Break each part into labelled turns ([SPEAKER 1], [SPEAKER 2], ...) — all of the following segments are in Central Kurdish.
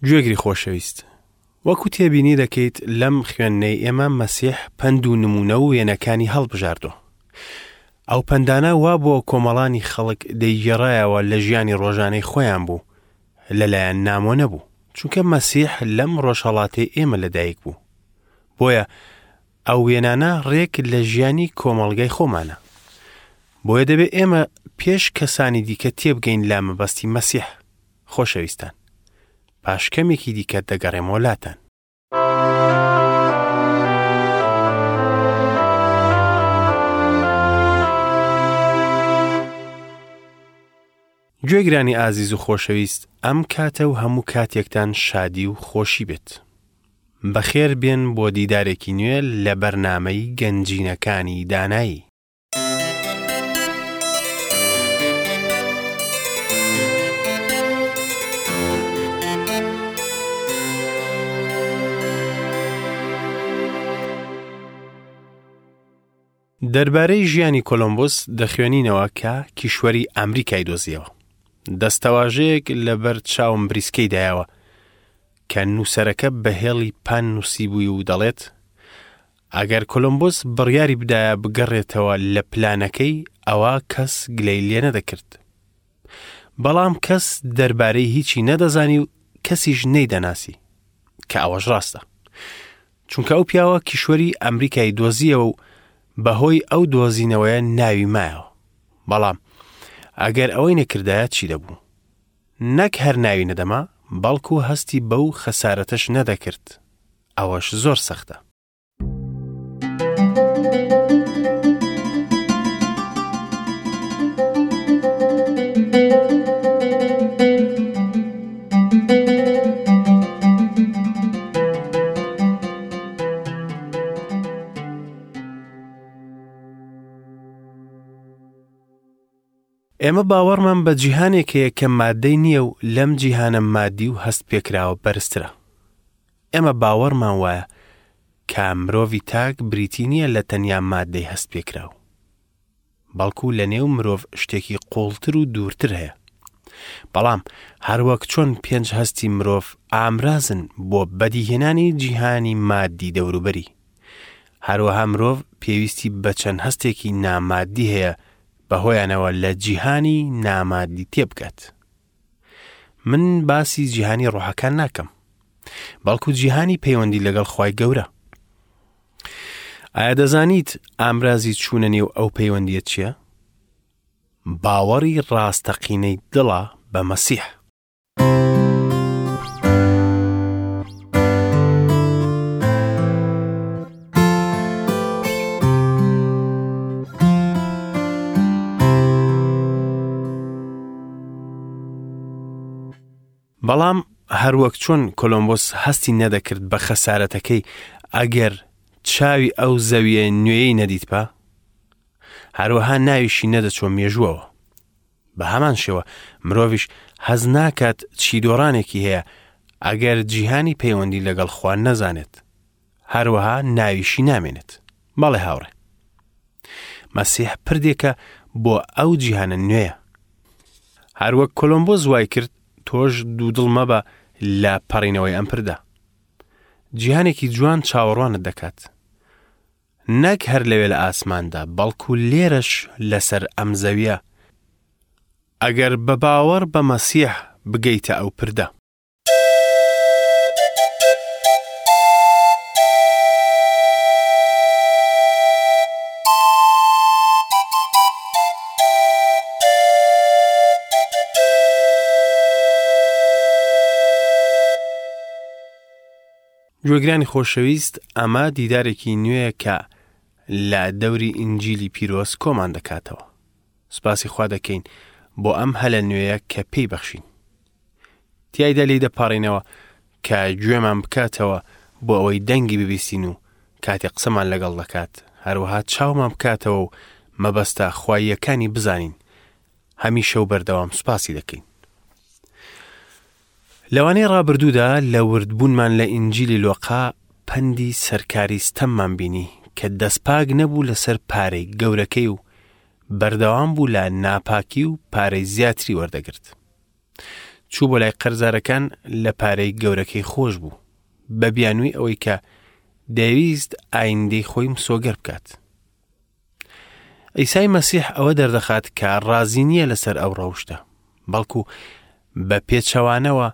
[SPEAKER 1] گوێگری خۆشەویست، وەکو تێبینی دەکەیت لەم خوێندنەی ئێمە مەسیح پەند و نمونە و وێنەکانی هەڵبژاردووە. ئەو پەندانە وا بۆ کۆمەڵانی خەڵک دەیگێڕایەوە لە ژیانی ڕۆژانەی خۆیان بوو، لەلایەن نامۆ نەبوو، چونکە مەسیح لەم ڕۆژهەڵاتەی ئێمە لەدایک بوو. بۆیە ئەو وێنانە ڕێک لە ژیانی کۆمەڵگای خۆمانە. بۆیە دەبێ ئێمە پێش کەسانی دیکە تێبگەین لە مەبەستی مەسیح. خۆشەویستان پاش کەمێکی دیکە دەگەڕێمەوە لاتان. گوێگرانی ئازیز و خۆشەویست ئەم کاتە و هەموو کاتێکتان شادی و خۆشی بێت. بەخێر بێن بۆ دیدارێکی نوێ لە بەرنامەی گەنجینەکانی دانایی. دەربارەی ژیانی کۆلۆمبوس دەخوێنینەوە کە کیشوەری ئەمریکای دۆزیەوە. دەستەواژەیەک لەبەر چاوم بریسکەی دایەوە کە نووسەرەکە بە هێڵی پان نووسیبووی و دەڵێت ئەگەر کۆلۆمبوس بڕیاری بدایە بگەڕێتەوە لە پلانەکەی ئەوا کەس گلەی لێ نەدەکرد. بەڵام کەس دەربارەی هیچی نەدەزانی و کەسیش نەیدەناسی کە ئەوەش ڕاستە. چونکە ئەو پیاوە کیشوەری ئەمریکای دۆزیەوە و بەهۆی ئەو دۆزینەوەیە ناوی مایەوە. بەڵام ئەگەر ئەوەی نەکردایە چی دەبوو؟ نەک هەر ناوی نەدەما، بەڵکو هەستی بەو خەسارەتەش نەدەکرد. ئەوەش زۆر سەختە. ئێمە باوەڕمان بە جیهانێک هەیە کە مادەی نییە و لەم جیهانە مادی و هەست پێکراوە بەرزترە. ئێمە باوەڕمان وایە کە مرۆڤی تاک بریتی نییە لە تەنیا مادەی هەست پێکراو. بەڵکو لە نێو مرۆڤ شتێکی قوڵتر و دوورتر هەیە. بەڵام هەروەک چۆن پێنج هەستی مرۆڤ ئامرازن بۆ بەدیهێنانی جیهانی مادی دەوروبەری. هەروەها مرۆڤ پێویستی بە چەند هەستێکی نامادی هەیە بەهۆیانەوە لە جیهانی نامادی تێبگات. من باسی جیهانی ڕۆحەکان ناکەم، بەڵکو جیهانی پەیوەندی لەگەڵ خوای گەورە. ئایا دەزانیت ئامرازی چوونە نێو ئەو پەیوەندیە چییە؟ باوەڕی ڕاستەقینەی دڵە بە مەسیح. بەڵام هەروەک چۆن کۆلۆمبۆس هەستی نەدەکرد بە خەسارەتەکەی ئەگەر چاوی ئەو زەویە نوێیەی نەدیتبا، هەروەها ناویشی نەدەچووە مێژووەوە. بە هەمان شێوە مرۆڤیش هەست ناکات چی دۆڕانێکی هەیە ئەگەر جیهانی پەیوەندی لەگەڵ خوا نەزانێت. هەروەها ناویشی نامێنێت. بەڵێ هاوڕێ. مەسیح پردێکە بۆ ئەو جیهانە نوێیە. هەروەک کۆلۆمبۆس وای کرد تۆش دوودڵ مەبە لە پەڕینەوەی ئەم پردە. جیهانێکی جوان چاوەڕوانت دەکات. نەک هەر لەوێ لە ئاسماندا، بەڵکو لێرەش لەسەر ئەم زەویە، ئەگەر بە باوەڕ بە مەسیح بگەیتە ئەو پردە. گوێگرانی خۆشەویست ئەمە دیدارێکی نوێیە کە لە دەوری ئینجیلی پیرۆز کۆمان دەکاتەوە. سوپاسی خوا دەکەین بۆ ئەم هەلە نوێیە کە پێی بەخشین. تیایدا لێی دەپاڕینەوە کە گوێمان بکاتەوە بۆ ئەوەی دەنگی ببیستین و کاتێ قسەمان لەگەڵ دەکات، هەروەها چاومان بکاتەوە و مەبەستە خواییەکانی بزانین. هەمیشە و بەردەوام سوپاسی دەکەین. لەوانەی ڕابردوودا لە وردبوونمان لە ئینجیلی لۆقا پەندی سەرکاری ستەممان بینی کە دەستپاک نەبوو لەسەر پارەی گەورەکەی و بەردەوام بوو لە ناپاکی و پارەی زیاتری وەردەگرت. چوو بۆ لای قەرزارەکان لە پارەی گەورەکەی خۆش بوو بە بیانووی ئەوەی کە دەیویست ئایندەی خۆی مسۆگەر بکات. عیسای مەسیح ئەوە دەردەخات کە ڕازی نییە لەسەر ئەو ڕەوشتە، بەڵکو بە پێچەوانەوە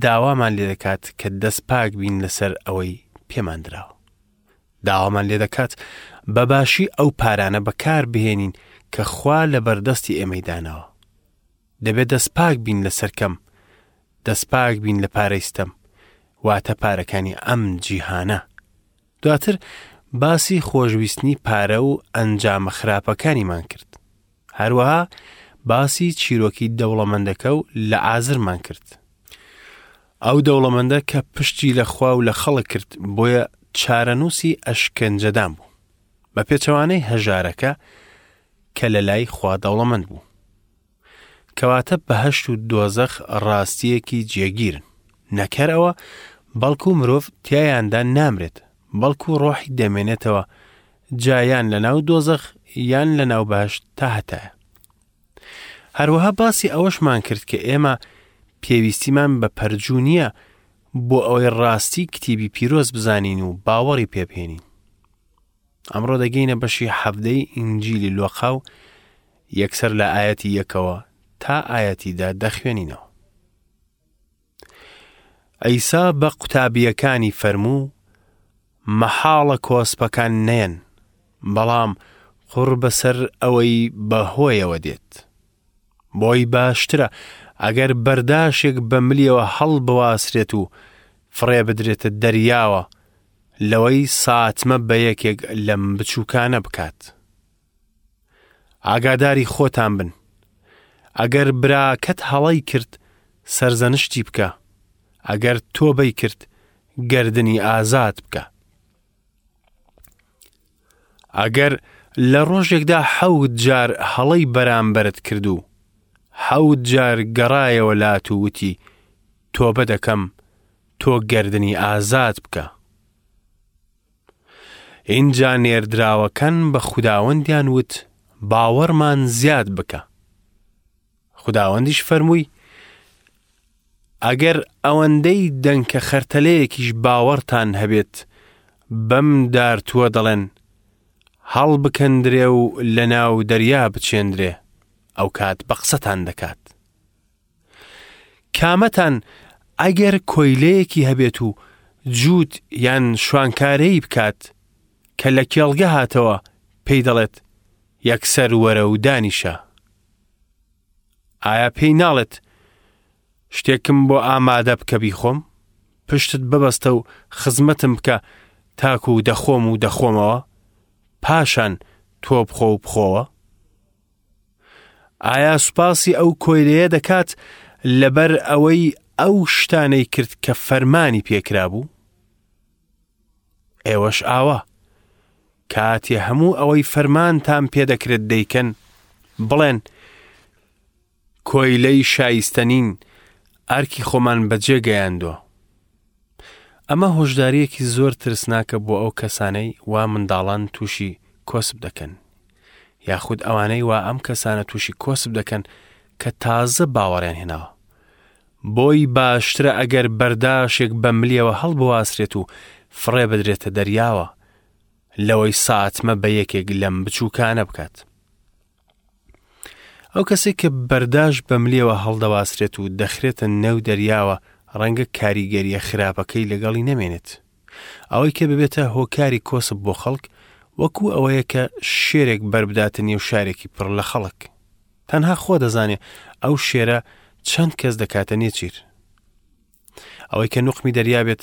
[SPEAKER 1] داوامان لێ دەکات کە دەست پاک بین لەسەر ئەوەی پێمان دراوە. داوامان لێ دەکات بە باشی ئەو پارانە بەکار بهێنین کە خوا لە بەردەستی ئێمەی داناوە. دەبێت دەست پاک بین لەسەر کەم، دەست پاک بین لە پارەی ستەم، واتە پارەکانی ئەم جیهانە. دواتر باسی خۆشویستنی پارە و ئەنجامە خراپەکانیمان کرد. هەروەها باسی چیرۆکی دەوڵەمەندەکە و لە ئازرمان کرد. ئەو دەوڵەمەندە کە پشتی لە خوا و لە خەڵک کرد بۆیە چارەنووسی ئەشکەنجەدان بوو. بە پێچەوانەی هەژارەکە کە لە لای خوا دەوڵەمەند بوو. کەواتە بەهەشت و دۆزەخ ڕاستییەکی جێگیرن. نەک هەر ئەوە، بەڵکو مرۆڤ تیایاندا نامرێت، بەڵکو ڕۆحی دەمێنێتەوە، جا یان لەناو دۆزەخ یان لەناو بەهەشت تا هەتایە. هەروەها باسی ئەوەشمان کرد کە ئێمە پێویستیمان بە پەرجوو نییە بۆ ئەوەی ڕاستی کتیبی پیرۆز بزانین و باوەڕی پێبهێنین. ئەمڕۆ دەگەینە بەشی حەڤدەی ئینجیلی لۆقا و یەکسەر لە ئایەتی یەکەوە تا ئایەتی دە دەخوێنینەوە. عیسا بە قوتابییەکانی فەرموو، مەحاڵە کۆسپەکان نەیەن، بەڵام قوڕ بەسەر ئەوەی بە هۆیەوە دێت. بۆی باشترە ئەگەر بەرداشێک بە ملیەوە هەڵبواسرێت و فڕێ بدرێتە دەریاوە لەوەی ساتمە بە یەکێک لەم بچووکانە بکات. ئاگاداری خۆتان بن. ئەگەر براکەت هەڵەی کرد سەرزەنشتی بکە، ئەگەر تۆبەی کرد گەردنی ئازاد بکە. ئەگەر لە ڕۆژێکدا حەوت جار هەڵەی بەرامبەرت کرد و حەوت جار گەڕایەوە لات و وتی تۆبە دەکەم، تۆ گەردنی ئازاد بکە. ئینجا نێردراوەکان بە خوداوەندیان وت باوەڕمان زیاد بکە. خوداوەندیش فەرمووی ئەگەر ئەوەندەی دەنکە خەرتەلەیەکیش باوەڕتان هەبێت بەم دارتووە دەڵێن هەڵبکەندرێ و لە ناو دەریا بچێندرێ ئەو کات بە قسەتان دەکات. کامەتان ئەگەر کۆیلەیەکی هەبێت و جووت یان شوانکارەی بکات کە لە کێڵگە هاتەوە پێی دەڵێت یەکسەر وەرە و دانیشە ئایا پێی ناڵێت شتێکم بۆ ئامادە بکە بیخۆم پشتت ببەستە و خزمەتم بکە تاکو دەخۆم و دەخۆمەوە پاشان تۆ بخۆ و بخۆوە ئایا سوپاسی ئەو کۆیلەیە دەکات لەبەر ئەوەی ئەو شتانەی کرد کە فەرمانی پێکرابوو؟ ئێوەش ئاوا کاتێ هەموو ئەوەی فەرمانتان پێدەکرێت دەیکەن بڵێن کۆیلەی شایستە نین، ئەرکی خۆمان بەجێ گەیاندووە. ئەمە هۆشدارییەکی زۆر ترسناکە بۆ ئەو کەسانەی وا منداڵان تووشی کۆسپ دەکەن، یاخود ئەوانەی وا ئەم کەسانە تووشی کۆسپ دەکەن کە تازە باوەڕیان هێناوە. بۆی باشترە ئەگەر بەرداشێک بە ملیەوە هەڵبواسرێت و فڕێ بدرێتە دەریاوە، لەوەی ساتمە بە یەکێک لەم بچووکانە بکات. ئەو کەسێک کە بەرداش بە ملیەوە هەڵدەواسرێت و دەخرێتە نێو دەریاوە ڕەنگە کاریگەریە خراپەکەی لەگەڵی نەمێنێت. ئەوەی کە ببێتە هۆکاری کۆسپ بۆ خەڵک وەکو ئەوەیە کە شێرێک بەربداتە نێو شارێکی پڕ لە خەڵک. تەنها خۆ دەزانێ ئەو شێرە چەند کەس دەکاتە نێچیر. ئەوەی کە نوقمی دەریا بێت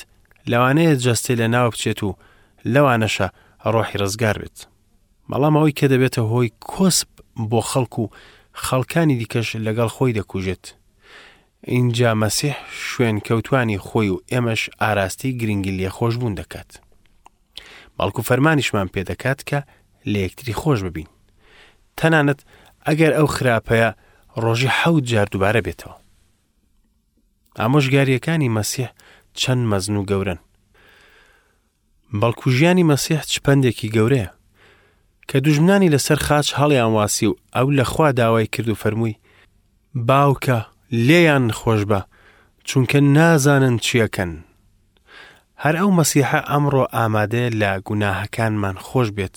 [SPEAKER 1] لەوانەیە جەستەی لە ناو بچێت و لەوانەشە ڕۆحی ڕزگار بێت. بەڵام ئەوەی کە دەبێتە هۆی کۆسپ بۆ خەڵک و خەڵکانی دیکەش لەگەڵ خۆی دەکوژێت. ئینجا مەسیح شوێنکەوتوانی خۆی و ئێمەش ئاراستەی گرنگی لێخۆشبوون دەکات. بەڵکو فەرمانیشمان پێدەکات کە لە یەکتری خۆش ببین. تەنانەت ئەگەر ئەو خراپەیە ڕۆژی حەوت جار دووبارە بێتەوە. ئامۆژگارییەکانی مەسیح چەند مەزن و گەورەن. بەڵکو ژیانی مەسیح چ پەندێکی گەورەیە. کە دوژمنانی لەسەر خاچ هەڵیان واسی و ئەو لە خوا داوای کرد و فەرمووی، باوکە، لێیان خۆشبە، چونکە نازانن چیەکەن. هەر ئەو مەسیحە ئەمڕۆ ئامادەیە لە گوناهەکانمان خۆش بێت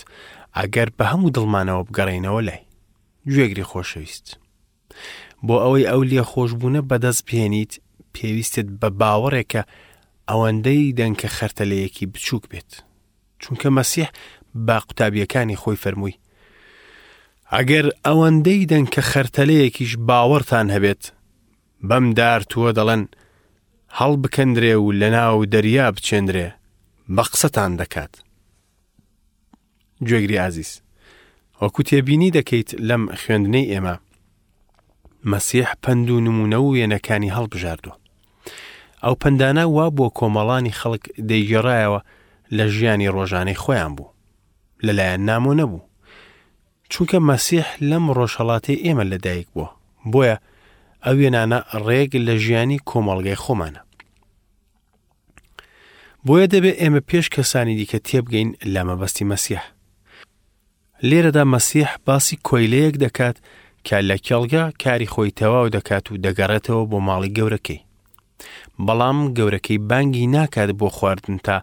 [SPEAKER 1] ئەگەر بە هەموو دڵمانەوە بگەڕێینەوە لای. گوێگری خۆشەویست. بۆ ئەوەی ئەو لێخۆشبوونە بەدەست بهێنیت پێویستت بە باوەڕێکە ئەوەندەی دەنکە خەرتەلەیەکی بچووک بێت. چونکە مەسیح بە قوتابیەکانی خۆی فەرمووی ئەگەر ئەوەندەی دەنکە خەرتەلەیەکیش باوەڕتان هەبێت بەم دارتووە دەڵێن هەڵبکەندرێ و لەناو دەریا بچێندرێ بە قسەتان دەکات. گوێگری ئازیز وەکو تێبینی دەکەیت لەم خوێندنەی ئێمە مەسیح پەند و نمونە و وێنەکانی هەڵبژاردووە ئەو پەندانە وا بۆ کۆمەڵانی خەڵک دەیگێڕایەوە لە ژیانی ڕۆژانەی خۆیان بوو لەلایەن نامۆ نەبوو چونکە مەسیح لەم ڕۆژهەڵاتەی ئێمە لەدایک بووە بۆیە ئەو وێنانە ڕێک لە ژیانی کۆمەڵگەی خۆمانە بۆیە دەبێ ئێمە پێش کەسانی دیکە تێبگەین لە مەبەستی مەسیح. لێرەدا مەسیح باسی کۆیلەیەک دەکات کە لە کێڵگە کاری خۆی تەواو دەکات و دەگەڕێتەوە بۆ ماڵی گەورەکەی. بەڵام گەورەکەی بانگی ناکات بۆ خواردن تا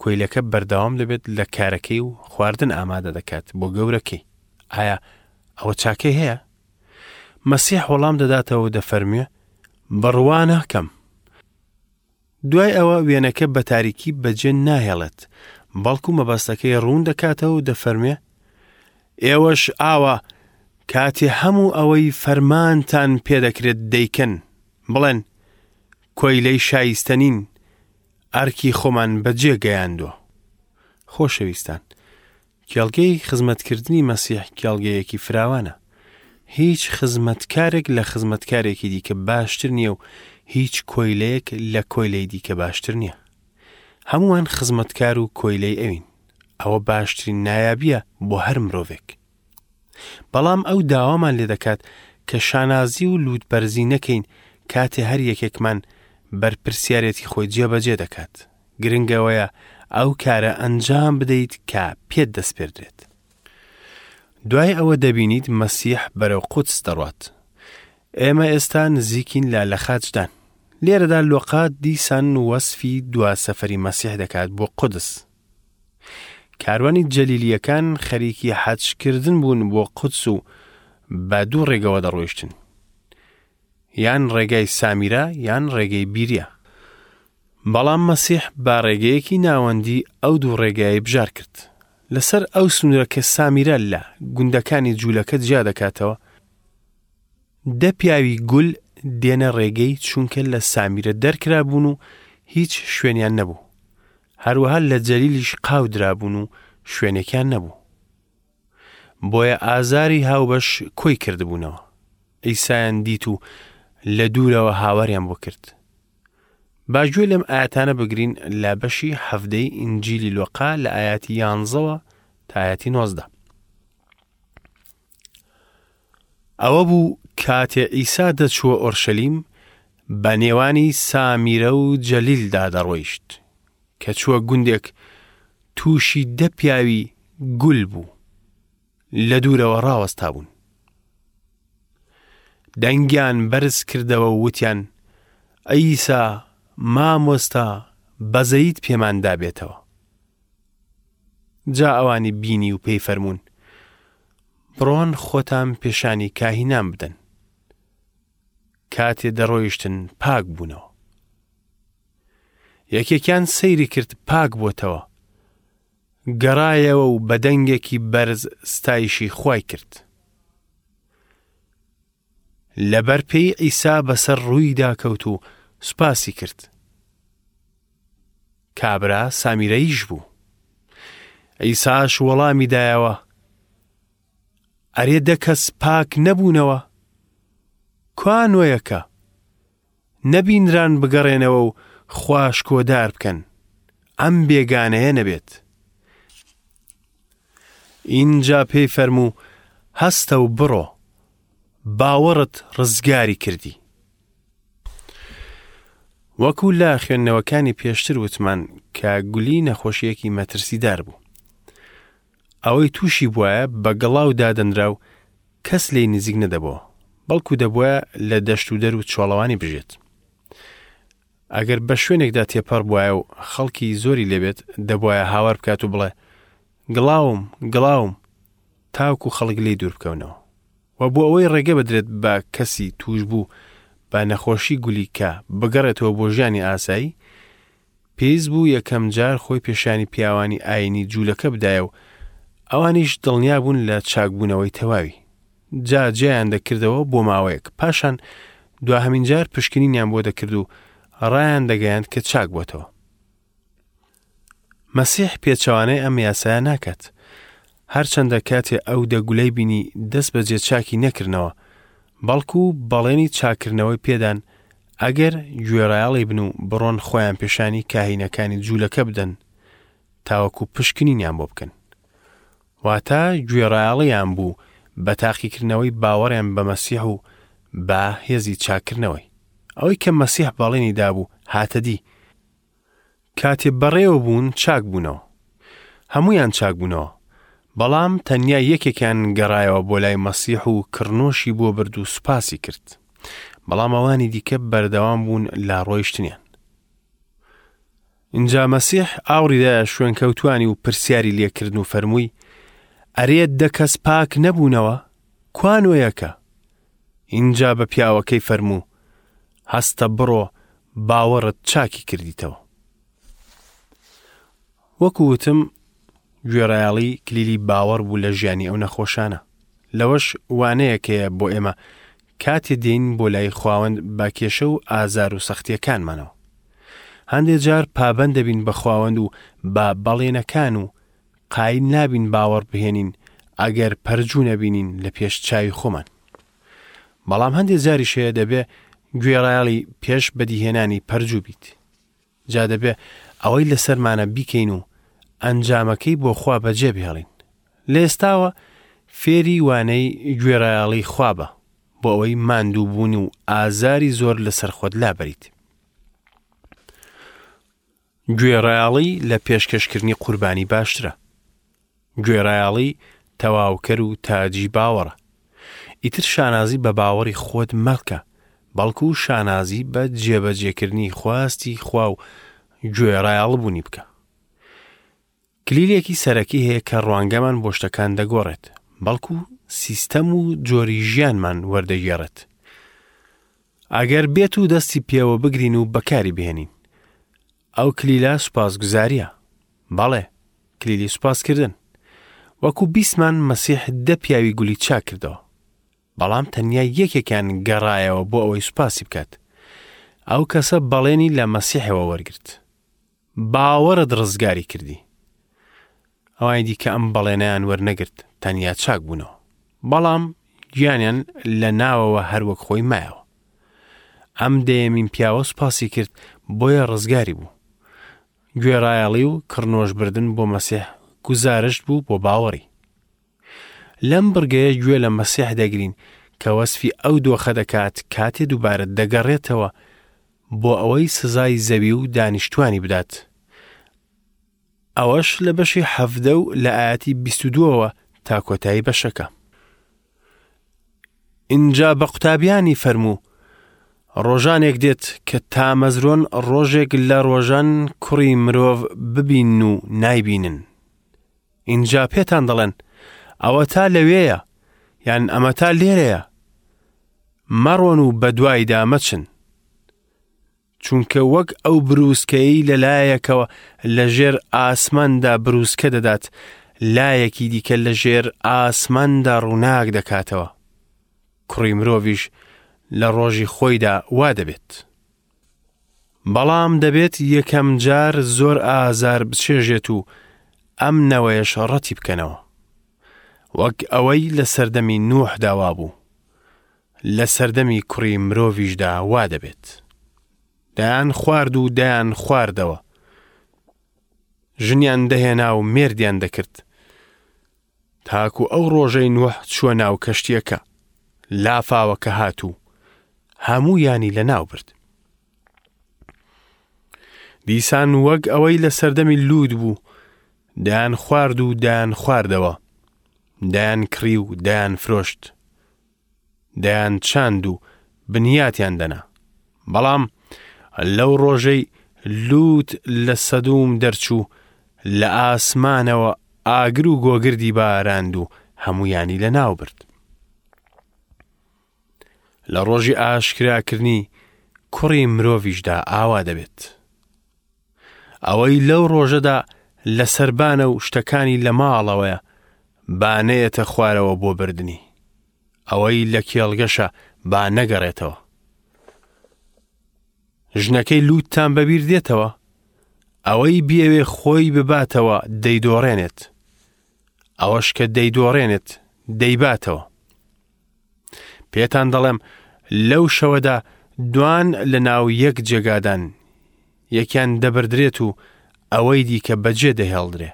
[SPEAKER 1] کۆیلەکە بەردەوام دەبێت لە کارەکەی و خواردن ئامادە دەکات بۆ گەورەکەی. ئایا ئەوە چاکەی هەیە؟ مەسیح وەڵام دەداتەوە و دەفەرموێ بڕوا ناکەم. دوای ئەوە وێنەکە بە تاریکی بەجێ ناهێڵێت، بەڵکو مەبەستەکەی ڕوون دەکاتەوە و دەفەرموێ، ئێوەش ئاوا کاتێ هەموو ئەوەی فەرمانتان پێدەکرێت دەیکەن، بڵێن، کۆیلەی شایستە نین، ئەرکی خۆمان بەجێ گەیاندووە. خۆشەویستان، کێڵگەی خزمەتکردنی مەسیح کێڵگەیەکی فراوانە. هیچ خزمەتکارێک لە خزمەتکارێکی دیکە باشتر نییە و هیچ کۆیلەیەک لە کۆیلەی دیکە باشتر نییە. هەمووان خزمەتکار و کۆیلەی ئەوین. ئەوە باشترین نایابییە بۆ هەر مرۆڤێک. بەڵام ئەو داوامان لێ دەکات کە شانازی و لووتبەرزی نەکەین کاتێ هەر یەکێکمان بەرپرسیارێتی خۆی جێبەجێ دەکات. گرنگ ئەوەیە ئەو کارە ئەنجام بدەیت کە پێت دەسپێردرێت. دوای ئەوە دەبینیت مەسیح بەرەو قودس دەڕوات. ئێمە ئێستا نزیکین لە لەخاچدان. لێرەدا لۆقا دیسان وەسفی دوا سەفەری مەسیح دەکات بۆ قودس. کاروانی جەلیلییەکان خەریکی حەجکردن بوون بۆ قودس و بە دوو ڕێگەوە دەڕۆیشتن. یان ڕێگای سامیرا یان ڕێگەی بیریا. بەڵام مەسیح بە ڕێگەیەکی ناوەندی ئەو دوو ڕێگایەی بژار کرد. لەسەر ئەو سنوورە کە سامیرا لە گوندەکانی جوولەکە جیا دەکاتەوە، دە پیاوی گول دێنە ڕێگەی چونکە لە سامیرە دەرکرابوون و هیچ شوێنیان نەبوو. هەروەها لە جەلیلیش قاو درابوون و شوێنێکیان نەبوو. بۆیە ئازاری هاوبەش کۆی کردبوونەوە. عیسایان دیت و لە دوورەوە هاواریان بۆ کرد. با گوێ لەم ئاەتانە بگرین لە بەشی حەفدەی ئینجیلی لۆقا لە ئاەتی یانزەوە تا ئاەتی نۆزدە. ئەوە بوو کاتێ عیسا دەچووە ئۆرشەلیم بە نێوانی سامیرە و جەلیلدا دەڕۆیشت. کە چووە گوندێک تووشی دە پیاوی گول بوو لە دوورەوە ڕاوەستابوون. دەنگیان بەرز کردەوە و وتیان، عیسا، مامۆستا، بەزەییت پێماندا بێتەوە. جا ئەوانی بینی و پێی فەرموون، بڕۆن خۆتان پێشانی کاهینان بدەن. کاتێ دەڕۆیشتن پاک بوونەوە. یەکێکیان سەیری کرد پاک بۆتەوە. گەڕایەوە و بە دەنگێکی بەرز ستایشی خوای کرد. لەبەر پێی عیسا بەسەر ڕوویدا کەوت و سوپاسی کرد. کابرا سامیرەییش بوو. عیساش وەڵامی دایەوە، ئەرێ دە کەس پاک نەبوونەوە؟ کوا نۆیەکە؟ نەبینران بگەڕێنەوە و خوا شکۆدار بکەن، ئەم بێگانەیە نەبێت. ئینجا پێی فەرموو، هەستە و بڕۆ، باوەڕت ڕزگاری کردی. وەکو لە خوێندنەوەکانی پێشتر وتمان کە گولی نەخۆشیەکی مەترسیدار بوو. ئەوەی تووشی بوایە بە گڵاو دادەنرا و کەس لێی نزیک نەدەبۆوە. بەڵکو دەبوایە لە دەشت و دەر و چۆڵەوانی بژێت. ئەگەر بە شوێنێکدا تێپەڕ بوایە و خەڵکی زۆری لێبێت، دەبوایە هاوار بکات و بڵێ، گڵاوم، گڵاوم، تاوەکو خەڵک لێی دوور بکەونەوە. و بۆ ئەوەی ڕێگە بدرێت بە کەسی تووشبوو بە نەخۆشی گولی کە بگەڕێتەوە بۆ ژیانی ئاسایی، پێویست بوو یەکەم جار خۆی پێشانی پیاوانی ئایینی جوولەکە بدایە و ئەوانیش دڵنیا بوون لە چاکبوونەوەی تەواوی. جا جیایان دەکردەوە بۆ ماوەیەک، پاشان دواهەمین جار پشکنینیان بۆ دەکرد و ڕایان دەگەیاند کە چاک بۆتەوە. مەسیح پێچەوانەی ئەم یاسایە ناکات. هەرچەندە کاتێ ئەو دە گولەی بینی دەست بەجێ چاکی نەکردنەوە، بەڵکو بەڵێنی چاککردنەوەی پێدان ئەگەر گوێڕایەڵی بن و بڕۆن خۆیان پێشانی کاهینەکانی جوولەکە بدەن تاوەکو پشکنینیان بۆ بکەن. واتە گوێڕایەڵیان بوو بە تاقیکردنەوەی باوەڕیان بە مەسیح و بە هێزی چاککردنەوەی. ئەوەی کە مەسیح بەڵێنی دابوو هاتە دی. کاتێ بەڕێوە بوون چاک بوونەوە. هەموویان چاک بوونەوە. بەڵام تەنیا یەکێکیان گەڕایەوە بۆ لای مەسیح و کڕنۆشی بۆ برد و سوپاسی کرد. بەڵام ئەوانی دیکە بەردەوام بوون لە ڕۆیشتنیان. ئینجا مەسیح ئاوڕی دایە شوێنکەوتوانی و پرسیاری لێکردن و فەرمووی، ئەرێ دە کەس پاک نەبوونەوە؟ کوا نۆیەکە؟ ئینجا بە پیاوەکەی فەرموو، هەستە بڕۆ باوەڕت چاکی کردیتەوە. وەکو وتم گوێڕایەڵی کلیلی باوەڕ بوو لە ژیانی ئەو نەخۆشانە. لەوەش وانەیەک هەیە بۆ ئێمە کاتێ دێین بۆ لای خواوەند بە کێشە و ئازار و سەختیەکانمانەوە. هەندێ جار پابەند دەبین بە خواوەند و بە بەڵێنەکان و قایل نابین باوەڕ بهێنین ئەگەر پەرجوو نەبینین لە پێش چاوی خۆمان. بەڵام هەندێ جاریش هەیە دەبێ گوێڕایەڵی پێش بەدیهێنانی پەرجوو بیت. جا دەبێ ئەوەی لەسەرمانە بیکەین و ئەنجامەکەی بۆ خوا بەجێ بهێڵین. لە ئێستاوە فێری وانەی گوێڕایەڵی خوا بە بۆ ئەوەی ماندووبوون و ئازاری زۆر لەسەر خۆت لابەریت. گوێڕایەڵی لە پێشکەشکردنی قوربانی باشترە. گوێڕایەڵی تەواوکەر و تاجی باوەڕە. ئیتر شانازی بە باوەڕی خۆت مەکە، بەڵکو شانازی بە جێبەجێکردنی خواستی خوا و گوێڕایەڵبوونی بکە. کلیلێکی سەرەکی هەیە کە ڕوانگەمان بۆ شتەکان دەگۆڕێت، بەڵکو سیستەم و جۆری ژیانمان وەردەگێڕێت. ئەگەر بێت و دەستی پێوە بگرین و بەکاری بهێنین. ئەو کلیلە سوپاسگوزاریە. بەڵێ، کلیلی سوپاسکردن. وەکو بیستمان مەسیح دە پیاوی گولی چاک کردەوە. بەڵام تەنیا یەکێکیان گەڕایەوە بۆ ئەوەی سوپاسی بکات. ئەو کەسە بەڵێنی لە مەسیحەوە وەرگرت. باوەڕت ڕزگاری کردی. ئەوانی دیکە ئەم بەڵێنەیان وەرنەگرت، تەنیا چاک بوونەوە. بەڵام گیانیان لە ناوەوە هەر وەک خۆی مایەوە. ئەم دەیەمین پیاوە سوپاسی کرد، بۆیە ڕزگاری بوو. گوێڕایەڵی و کڕنۆشبردن بۆ مەسیح گوزارشت بوو بۆ باوەڕی. لەم بڕگەیە گوێ لە مەسیح دەگرین کە وەسفی ئەو دۆخە دەکات کاتێ دووبارە دەگەڕێتەوە بۆ ئەوەی سزای زەوی و دانیشتوانی بدات. ئەوەش لە بەشی حەڤدە و لە ئایەتی 22ەوە تا کۆتایی بەشەکە. ئینجا بە قوتابیانی فەرموو، ڕۆژانێک دێت کە تامەزرۆن ڕۆژێک لە ڕۆژان کوڕی مرۆڤ ببین و نایبینن. ئینجا پێتان دەڵێن، ئەوەتا لەوێیە، یان ئەمەتا لێرەیە. مەڕۆن و بەدوایدا مەچن. چونکە وەک ئەو بروسکەیەی لە لایەکەوە لە ژێر ئاسماندا بروسکە دەدات، لایەکی دیکە لە ژێر ئاسماندا ڕووناک دەکاتەوە. کوڕی مرۆڤیش لە ڕۆژی خۆیدا وا دەبێت. بەڵام دەبێت یەکەم جار زۆر ئازار بچێژێت و ئەم نەوەیەش ڕەتی بکەنەوە. وەک ئەوەی لە سەردەمی نوحدا وابوو. لە سەردەمی کوڕی مرۆڤیشدا وا دەبێت. دەیان خوارد و دەیان خواردەوە. ژنیان دەهێنا و مێردیان دەکرد. تاکو ئەو ڕۆژەی نوح چووە ناو کەشتیەکە. لافاوەکە هات و هەموویانی لەناو برد. دیسان وەک ئەوەی لە سەردەمی لوود بوو، دەیان خوارد و دەیان خواردەوە، دەیان کڕی و دەیان فرۆشت. دەیانچاند و بنیاتیان دەنا. بەڵام لەو ڕۆژەی لوت لە سەدوم دەرچوو، لە ئاسمانەوە ئاگر و گۆگردی باراند و هەموویانی لەناو برد. لە ڕۆژی ئاشکراکردنی کوڕی مرۆڤیشدا ئاوا دەبێت. ئەوەی لەو ڕۆژەدا لە سەربانە و شتەکانی لە ماڵەوەیە، با نەیەتە خوارەوە بۆ بردنی. ئەوەی لە کێڵگەشە با نەگەڕێتەوە. ژنەکەی لوتتان بەبیر دێتەوە؟ ئەوەی بیەوێ خۆی بباتەوە دەیدۆڕێنێت. ئەوەش کە دەیدۆڕێنێت دەیباتەوە. پێتان دەڵێم لەو شەوەدا دوان لە ناو یەک جێگادان، یەکیان دەبردرێت و ئەوەی دیکە بەجێ دەهێڵدرێ.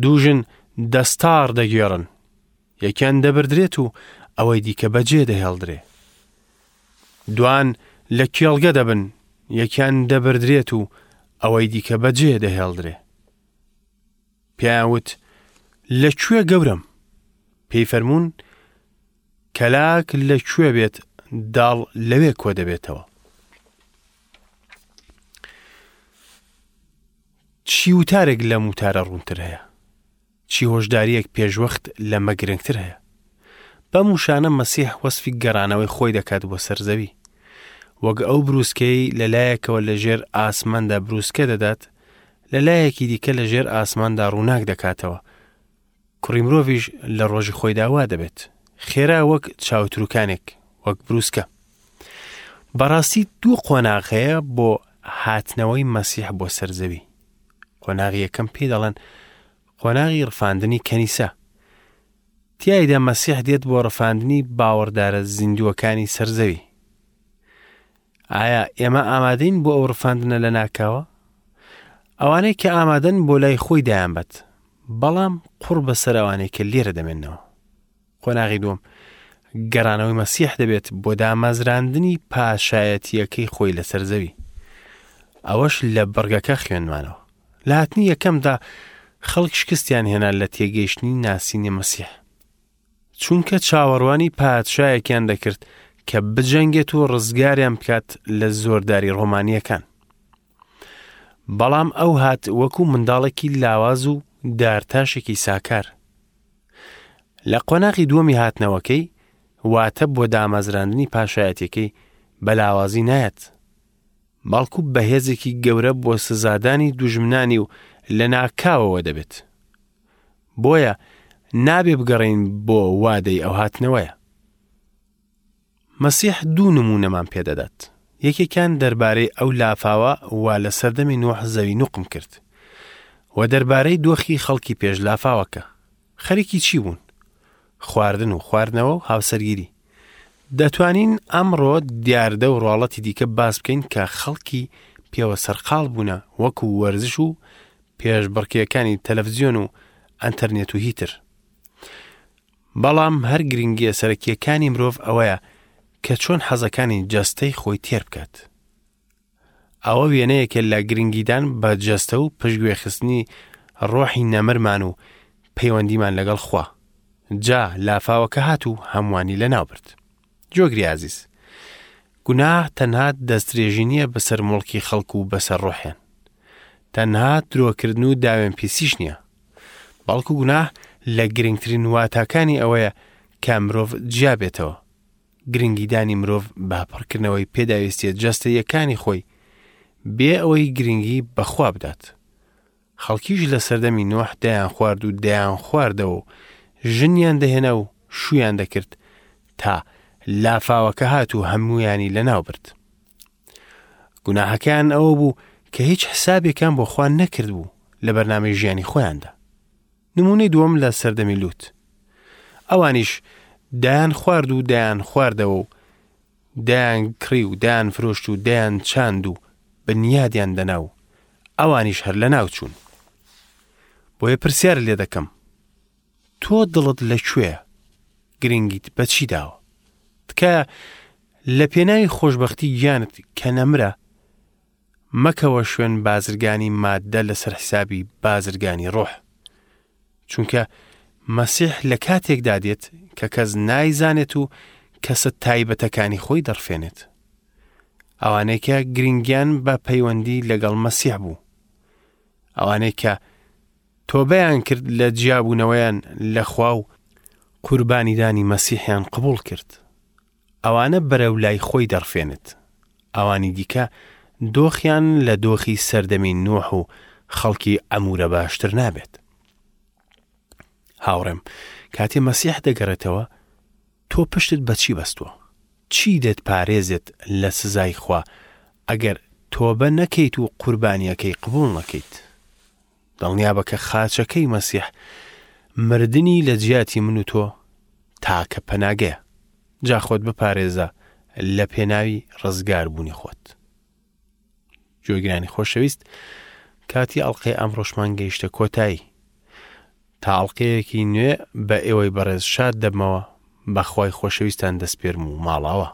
[SPEAKER 1] دوو ژن دەستاڕ دەگێڕن، یەکیان دەبردرێت و ئەوەی دیکە بەجێ دەهێڵدرێ. دوان لە کێڵگە دەبن، یەکیان دەبردرێت و ئەوەی دیکە بەجێ دەهێڵدرێ. پێیان وت، لە کوێ گەورەم؟ پێی فەرموون، کەلاک لە کوێ بێت داڵ لەوێ کۆ دەبێتەوە. چی وتارێک لەم وتارە ڕوونتر هەیە؟ چی هۆشدارییەک پێشوەخت لەمە گرنگتر هەیە؟ بەم وشانە مەسیح وەسفی گەڕانەوەی خۆی دەکات بۆ سەر زەوی. وەک ئەو بروسکەی لە لایەکەوە لە ژێر ئاسماندا بروسکە دەدات، لە لایەکی دیکە لە ژێر ئاسماندا ڕووناک دەکاتەوە. کوڕی مرۆڤیش لە ڕۆژی خۆیدا وا دەبێت. خێرا وەک چاوتروکانێک، وەک بروسکە. بەڕاستی دوو قۆناغ هەیە بۆ هاتنەوەی مەسیح بۆ سەر زەوی. قۆناغی یەکەم پێی دەڵێن قۆناغی ڕفاندنی کەنیسە. تیایدا مەسیح دێت بۆ ڕفاندنی باوەڕدارە زیندووەکانی سەر زەوی. ئایا ئێمە ئامادەین بۆ ئەو ڕفاندنە لە ناکاوە؟ ئەوانەی کە ئامادەن بۆ لای خۆی دایانبەت، بەڵام قوڕ بەسەر ئەوانەی کە لێرە دەمێنەوە. قۆناغی دووەم، گەڕانەوەی مەسیح دەبێت بۆ دامەزراندنی پاشایەتییەکەی خۆی لەسەر زەوی. ئەوەش لە بڕگەکە خوێندمانەوە. لە هاتنی یەکەمدا خەڵک شکستیان هێنا لە تێگەیشتنی ناسینی مەسیح. چونکە چاوەڕوانی پادشایەکیان دەکرد کە بجەنگێت و ڕزگاریان بکات لە زۆرداری ڕۆمانییەکان. بەڵام ئەو هات وەکو منداڵێکی لاواز و دارتاشێکی ساکار. لە قۆناغی دووەمی هاتنەوەکەی، واتە بۆ دامەزراندنی پاشایەتیەکەی، بە لاوازی نایەت، بەڵکو بە هێزێکی گەورە بۆ سزادانی دوژمنانی و لەناکاوەوە دەبێت. بۆیە نابێ بگەڕێین بۆ وادەی ئەو هاتنەوەیە. مەسیح دوو نموونەمان پێدەدات. یەکێکیان دەربارەی ئەو لافاوە وا لە سەردەمی نوح زەوی نوقم کرد و دەربارەی دۆخی خەڵکی پێش لافاوەکە. خەریکی چی بوون؟ خواردن و خواردنەوە و هاوسەرگیری. دەتوانین ئەمڕۆ دیاردە و ڕواڵەتی دیکە باس بکەین کە خەڵکی پێوە سەرقاڵ بوونە وەکو وەرزش و پێشبڕکێکانی تەلەفزیۆن و ئەنتەرنێت و هیتر. بەڵام هەر گرنگییە سەرەکییەکانی مرۆڤ ئەوەیە کە چۆن حەزەکانی جەستەی خۆی تێر بکات. ئەوە وێنەیەکە لە گرنگیدان بە جەستە و پشتگوێخستنی ڕۆحی نەمرمان و پەیوەندیمان لەگەڵ خوا. جا لافاوەکە هات و هەمووانی لەناو برد. جۆگری ئازیز، گوناه تەنها دەستدرێژی نییە بەسەر موڵکی خەڵک و بەسەر ڕۆحیان. تەنها درۆکردن و داوێنپیسیش نییە. بەڵکو گوناه لە گرنگترین واتاکانی ئەوەیە کە مرۆڤ جیا بێتەوە. گرنگیدانی مرۆڤ بە پڕکردنەوەی پێداویستیە جەستەییەکانی خۆی بێ ئەوەی گرنگی بە خوا بدات. خەڵکیش لە سەردەمی نوح دەیانخوارد و دەیانخواردەوە و ژنیان دەهێنا و شوویان دەکرد تا لافاوەکە هات و هەموویانی لەناو برد. گوناهەکەیان ئەوە بوو کە هیچ حسابێکیان بۆ خوا نەکردبوو لە بەرنامەی ژیانی خۆیاندا. نمونەی دووەم لە سەردەمی لوت. ئەوانیش دایان خوارد و دایان خواردەوە و دایان کڕی و دایان فرۆشت و دایان چاند و بنیادیان دەنا و ئەوانیش هەر لەناو چوون. بۆیە پرسیار لێ دەکەم تۆ دڵت لە کوێیە؟ گرنگیت بە چی داوە؟ تکایە لە پێناوی خۆشبەختی گیانت کە نەمرە، مەکەوە شوێن بازرگانی ماددە لەسەر حیسابی بازرگانی ڕۆح. چونکە مەسیح لە کاتێکدا دێت کە کەس نایزانێت و کەسە تایبەتەکانی خۆی دەڕفێنێت. ئەوانەی کە گرنگیان بە پەیوەندی لەگەڵ مەسیح بوو. ئەوانەی کە تۆبەیان کرد لە جیابوونەوەیان لە خوا و قوربانیدانی مەسیحیان قبوڵ کرد. ئەوانە بەرەو لای خۆی دەڕفێنێت. ئەوانی دیکە دۆخیان لە دۆخی سەردەمی نوح و خەڵکی عەمورە باشتر نابێت. هاوڕێم، کاتێ مەسیح دەگەڕێتەوە، تۆ پشتت بە چی بەستووە؟ چی دەتپارێزێت لە سزای خوا ئەگەر تۆبە نەکەیت و قوربانییەکەی قبوڵ نەکەیت؟ دڵنیابە کە خاچەکەی مەسیح مردنی لە جیاتی من و تۆ تاکە پەناگەیە. جا خۆت بپارێزە لە پێناوی ڕزگاربوونی خۆت. گوێگرانی خۆشەویست کاتی ئەڵلقەی ئەمڕۆشمان گەیشتە کۆتایی. تا ئەڵلقەیەکی نوێ بە ئێوەی بەڕێز شاد دەبمەوە بەخوای خۆشەویستان دەسپێرم و ماڵاوە.